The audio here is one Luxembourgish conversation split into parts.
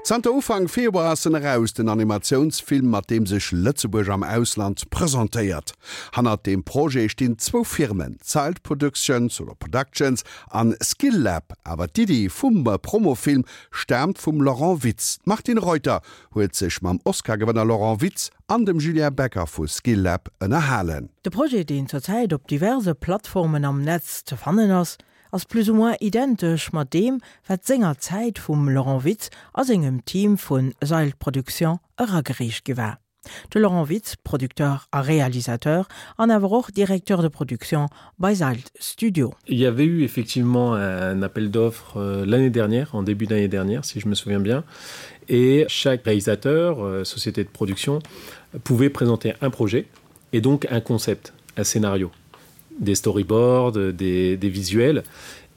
Zanter Ufank Februar ass en eraus, den Animatiounsfilm, mat deem sech Lëtzebuerg am Ausland presentéiert. Hannert deem Projet stinn zwou Firmen, Zild Productions oder Productions an Skillab. Awer d'Iddi vum Promofilm staamt vum Laurent Witz. D'Martine Reuter huet sech mam Oscar-Gewënner Laurent Witz an dem Julien Becker vu Skillab ënnerhalen. De Projet, deen zur Zäit op diverse Plattformen am Netz ze fannen ass, ass plus ou moins identesch mat deem, wat sengerzäit vum Laurent Witz a sengem Team vu Seilt Production eragereecht gi war. De Laurent Witz, Producteur a Réalisateur an awer och Directeur de production bei Seilt Studio. Il y avait eu effectivement un appel d'offres euh, l'année dernière, en début d'année dernière, si je me souviens bien, et chaque réalisateur, euh, société de production, pouvait présenter un projet et donc un concept, un scénario des storyboards, des, des visuels.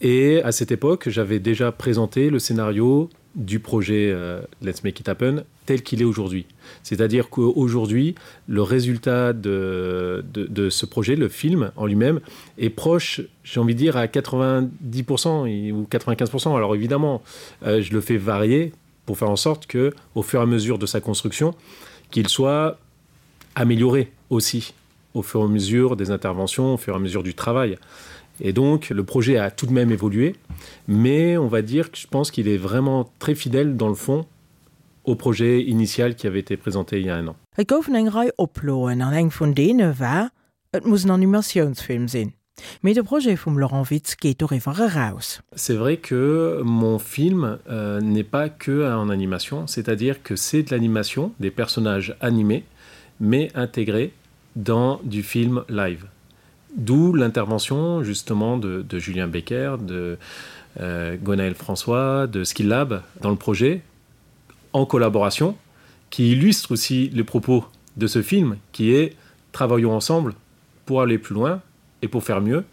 Et à cette époque, j'avais déjà présenté le scénario du projet euh, Let's Make It Happen tel qu'il est aujourd'hui. C'est-à-dire qu'aujourd'hui, le résultat de, de, de ce projet, le film en lui-même, est proche, j'ai envie de dire, à 90% ou 95%. Alors évidemment, euh, je le fais varier pour faire en sorte que, au fur et à mesure de sa construction, qu'il soit amélioré aussi au fur et à mesure des interventions, au fur et à mesure du travail. Et donc le projet a tout de même évolué, mais on va dire que je pense qu'il est vraiment très fidèle dans le fond au projet initial qui avait été présenté il y a un an. Et goufen eng Rei Oploen an eng vun deene war, et muss en Animatiounsfilm sinn. Mee de Projet vum Laurent Witz geet doriwwer eraus. C'est vrai que mon film euh, n'est pas que en animation, c'est-à-dire que c'est de l'animation, des personnages animés, mais intégrés dans du film live. D'où l'intervention justement de, de Julien Becker, de euh, Gonaël François, de Skillab dans le projet en collaboration, qui illustre aussi les propos de ce film qui est travaillons ensemble pour aller plus loin et pour faire mieux.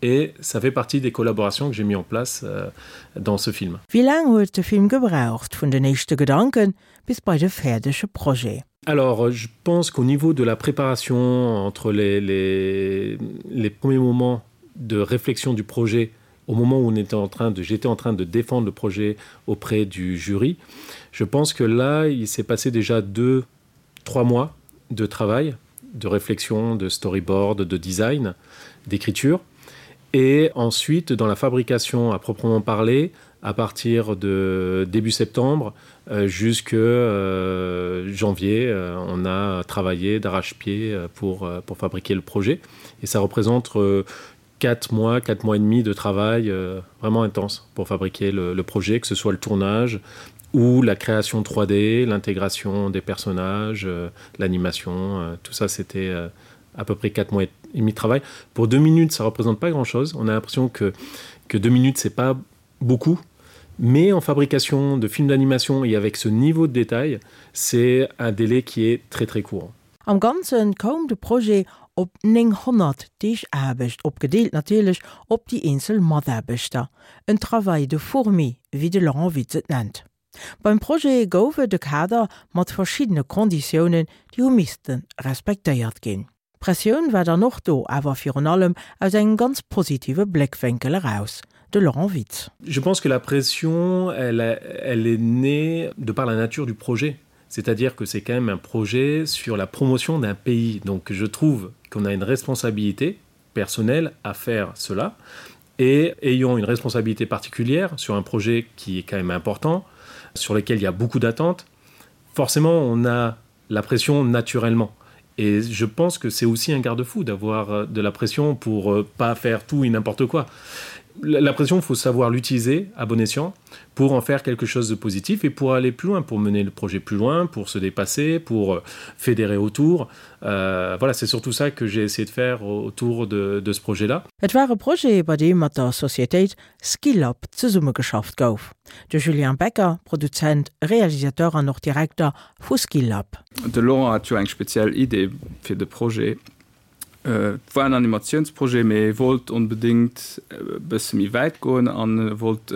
Et ça fait partie des collaborations que j'ai mis en place euh, dans ce film. Wéi laang huet de Film gebraucht, vun den éischte Gedanken bis bei de fäerdege Projet? Alors euh, je pense qu'au niveau de la préparation entre les, les, les premiers moments de réflexion du projet au moment où on était en train de j'étais en train de défendre le projet auprès du jury, je pense que là il s'est passé déjà deux trois mois de travail, de réflexion, de storyboard, de design, d'écriture. Et ensuite dans la fabrication à proprement parler, à partir de début septembre euh, jusque euh, janvier, euh, on a travaillé d'arrache-pied euh, pour, euh, pour fabriquer le projet. Et ça représente euh, quatre mois, quatre mois et demi de travail euh, vraiment intense pour fabriquer le, le projet, que ce soit le tournage ou la création 3D, l'intégration des personnages, euh, l'animation, euh, tout ça c'était euh, à peu près quatre mois et demi de travail. Pour deux minutes, ça représente pas grand-chose. On a l'impression que, que deux minutes, c'est pas beaucoup. Mais en fabrication de films d'animation et avec ce niveau de détail, c'est un délai qui est très très court. Am Ganze koum de Projet op 900 Deeg Aarbecht, opgedeelt natierlech op déi eenzel Mataarbechter. En Travail de fourmi, wéi de Laurent Witz et nennt. Beim Projet gouf et e Kader mat verschiddene Konditiounen, déi hu misste respektéiert ginn. D'Pressioun war dann och do, awer virun allem aus engem ganz positive Bléckwénkel eraus. De Laurent Witz. Je pense que la pression, elle, elle est née de par la nature du projet. C'est-à-dire que c'est quand même un projet sur la promotion d'un pays. Donc je trouve qu'on a une responsabilité personnelle à faire cela et ayant une responsabilité particulière sur un projet qui est quand même important, sur lequel il y a beaucoup d'attentes, forcément on a la pression naturellement. Et je pense que c'est aussi un garde-fou d'avoir euh, de la pression pour euh, pas faire tout et n'importe quoi. La pression, il faut savoir l'utiliser à bon escient pour en faire quelque chose de positif et pour aller plus loin, pour mener le projet plus loin, pour se dépasser, pour euh, fédérer autour. Euh, voilà, c'est surtout ça que j'ai essayé de faire autour de, de ce projet-là. Et war e Projet, bei deem mat der Sociétéit Skillab zesummegeschafft gouf. De Julien Becker, Produzent, Realisateur an och Direkter vu Skillab. De Laurent hat jo eng speziell Idee fir de Projet. Et war en Animatiounsprojet, mee e wollt onbedéngt e bësse méi wäit goen an e wollt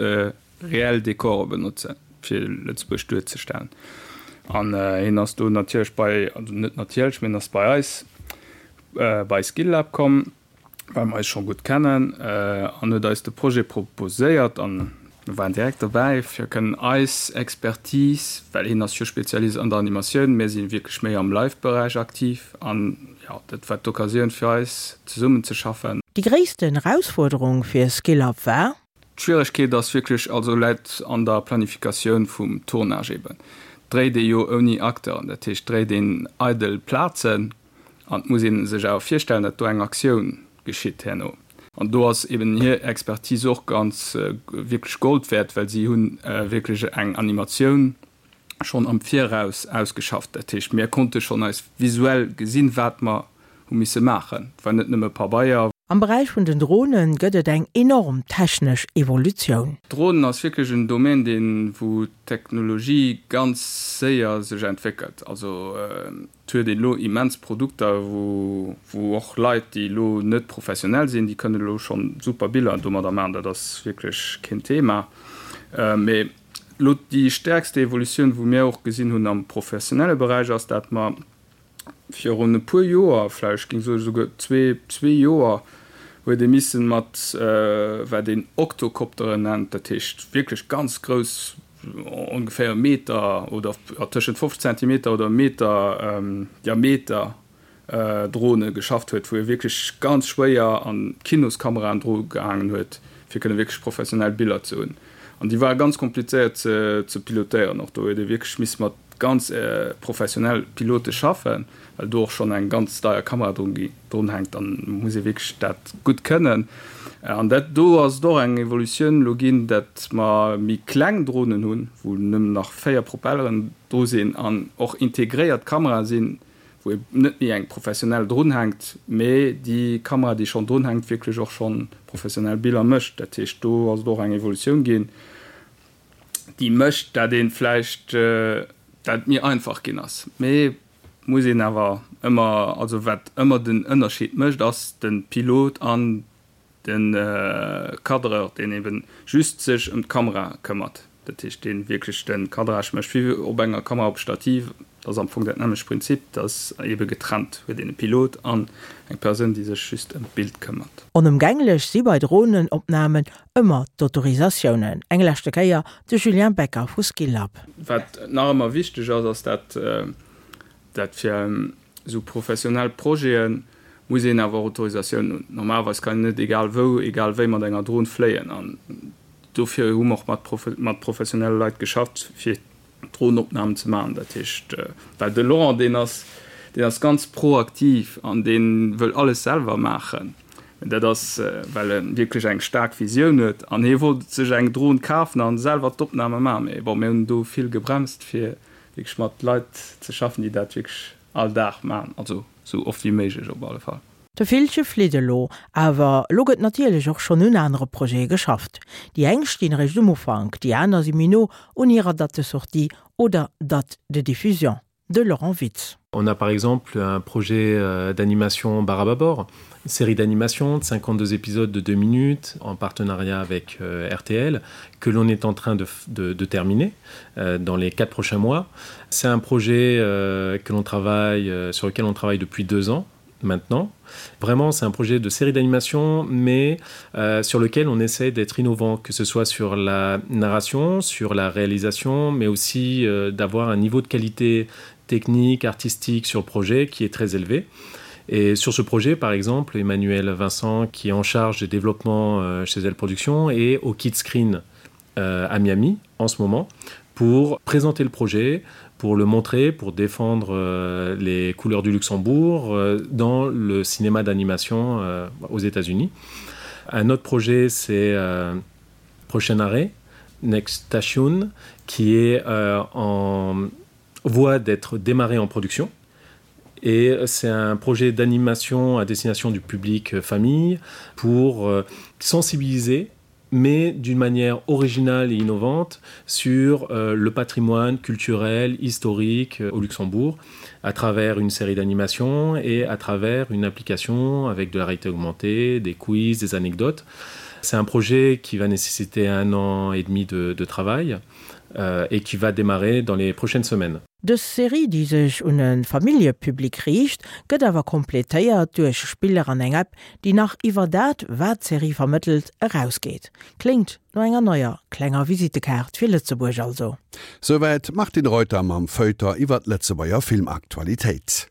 reell Dekore benotzen, fir Lëtzebuerg duerzestellen. An hien ass do natierlech bei, also net natierlech, mee hien ass bei eis bei Skillab komm, well mer eis scho gutt kennen, an huet eis de Projet proposéiert. An. Mir waren direkt dobäi fir kënnen eis Expertise, well hien ass jo Spezialist an der Animatioun, mir si wierklech méi am Live-Beräich aktiv an jo, dat war d'Occasioun fir eis zesummen ze schaffen. Déi gréissten Erausfuerderung fir SkillUp war? D'Schwieregkeet ass wierklech, also läit an der Planifikatioun vum Tournage eben. Dréit ee jo ouni Acteuren, dat heescht dréit een eidel Plazen an et muss ee sech awer virstellen, datt do eng Aktioun geschitt herno. An do ass eben hir Expertise och ganz wierklech Gold wäert, well si hu wierklech eng Animatioun schonn am Viraus ausgeschafft. Dat heescht, mir konnte schonn eis visuell gesinn, wat mer hu misse maachen. Et war net nëmme Pabeier. Am Beräich vun den Drone gëtt et eng enorm technesch Evolutioun. Dronen ass wierklech en Domaine, deen, wou d'Technologie ganz séier sech entwéckelt. Also et huet een elo immens Produkter, wou, wou och Leit, déi elo net professionell sinn, déi kënnen elo schonn super Biller domadder maachen. Dat ass wierklech keen Thema. Mee elo déi stäerkste Evolutioun, wou mir och gesinn hunn am professionelle Beräich, ass, dat mer Virun e puer Joer, vläicht géing soen esouguer zwee, zwee Joer, huet ee missen mat wat een Oktokopteren nennt, dat heescht wierklech ganz grouss, ongeféier e Meter oder tëschent 50 Zentimeter oder e Meter Diameter Drone geschafft huet, wou ee wierklech ganz schwéier an Kinoskameraen dru gehaangen huet, fir kënne wierklech professionell Biller ze hunn. An déi ware ganz komplizéiert ze pilotéieren och. Do huet ee wierklech misse mat ganz professionell Pilote schaffen, well do och schonn eng ganz deier Kamera drun drun hänkt, dann muss ee wierklech dat gutt kënnen. An dat do ass et och eng Evolutioun elo ginn, dat mer méi kleng Dronen hunn, wou nëmmen nach 4 Propelleren dru sinn an och integréiert Kamerae sinn, wou ee net méi eng professionell drun hänkt, mee déi Kamera, déi schonn drun hänkt, wierklech och schonn professionell Biller mécht. Dat heescht, do ass et och eng Evolutioun ginn. déi mécht, dat ee vläicht, dat et méi einfach ginn ass. Mee muss een awer ëmmer, also wat ëmmer den Ënnerscheed mécht, ass de Pilot an de Cadreur, deen ebe just sech ëm d'Kamera këmmert. Dat heescht, dee wierklech de Cadrage mécht, wéi op enger Kamera op Stativ. Dat ass am Fong dat nämmlecht Prinzip, dat ass ebe getrennt, huet een e Pilot an eng Persoun, déi sech just ëm d'Bild këmmert. Onëmgänglech si bei Dronenopnamen ëmmer d'Autorisatiounen. Eng leschte Kéier de Julien Becker vu Skillab. Wat nach ëmmer wichteg ass, ass dat, dat fir esou professionell Projete muss een awer och Autorisatiounen hunn. Normalerweis kann een net egal wou, egal wéi mat enger Dron fléien an dofir hu mer och mat professionelle Leit geschafft, fir Dronopnamen ze maachen. Dat heescht, well de Laurent, deen ass, deen ass ganz proaktiv an dee wëll alles selwer maachen. Dat ass, well e wierklech eng staark Visioun huet an hie wollt sech eng Dron kafen a selwer d'Opname maachen. Mee bon, mir hunn do vill gebremst, fir wierklech mat Leit ze schaffen, déi dat wierklech all Dag maachen, also esou oft wéi méiglech op alle Fall. De Villche flitt elo, awer elo gëtt natierlech och schonn un anere Projete geschafft. Déi eng stinn eréischt um Ufank, déi aner si méi no un hirer Date de sortie oder Date de diffusion. De Laurent Witz. On a par exemple un projet euh, d'animation Barababor, une série d'animation de 52 épisodes de deux minutes en partenariat avec euh, RTL que l'on est en train de, de, de terminer euh, dans les quatre prochains mois. C'est un projet euh, que l'on travaille euh, sur lequel on travaille depuis deux ans maintenant. Vraiment, c'est un projet de série d'animation, mais euh, sur lequel on essaie d'être innovant, que ce soit sur la narration, sur la réalisation, mais aussi euh, d'avoir un niveau de qualité technique, artistique sur le projet qui est très élevé. Et sur ce projet, par exemple, Emmanuel Vincent, qui est en charge des développements euh, chez Elle Productions et au Kit Screen euh, à Miami en ce moment pour présenter le projet, pour le montrer, pour défendre euh, les couleurs du Luxembourg euh, dans le cinéma d'animation euh, aux États-Unis. Un autre projet, c'est euh, Prochain arrêt, Next Station, qui est euh, en voie d'être démarré en production. Et c'est un projet d'animation à destination du public euh, famille pour euh, sensibiliser mais d'une manière originale et innovante sur euh, le patrimoine culturel, historique euh, au Luxembourg, à travers une série d'animations et à travers une application avec de la réalité augmentée, des quiz, des anecdotes. C'est un projet qui va nécessiter un an et demi de, de travail euh, et qui va démarrer dans les prochaines semaines. Dës Serie, déi sech un e Familljepublic riicht, gëtt awer kompletéiert duerch Spiller an eng App, déi nach iwwer dat, wat d'Serie vermëttelt, erausgeet. Kléngt no enger neier klenger Visittekaart fir Lëtzebuerg also. Souwäit d'Martine Reuter mam Feuilleton iwwer d'Lëtzebuerger Filmaktualitéit.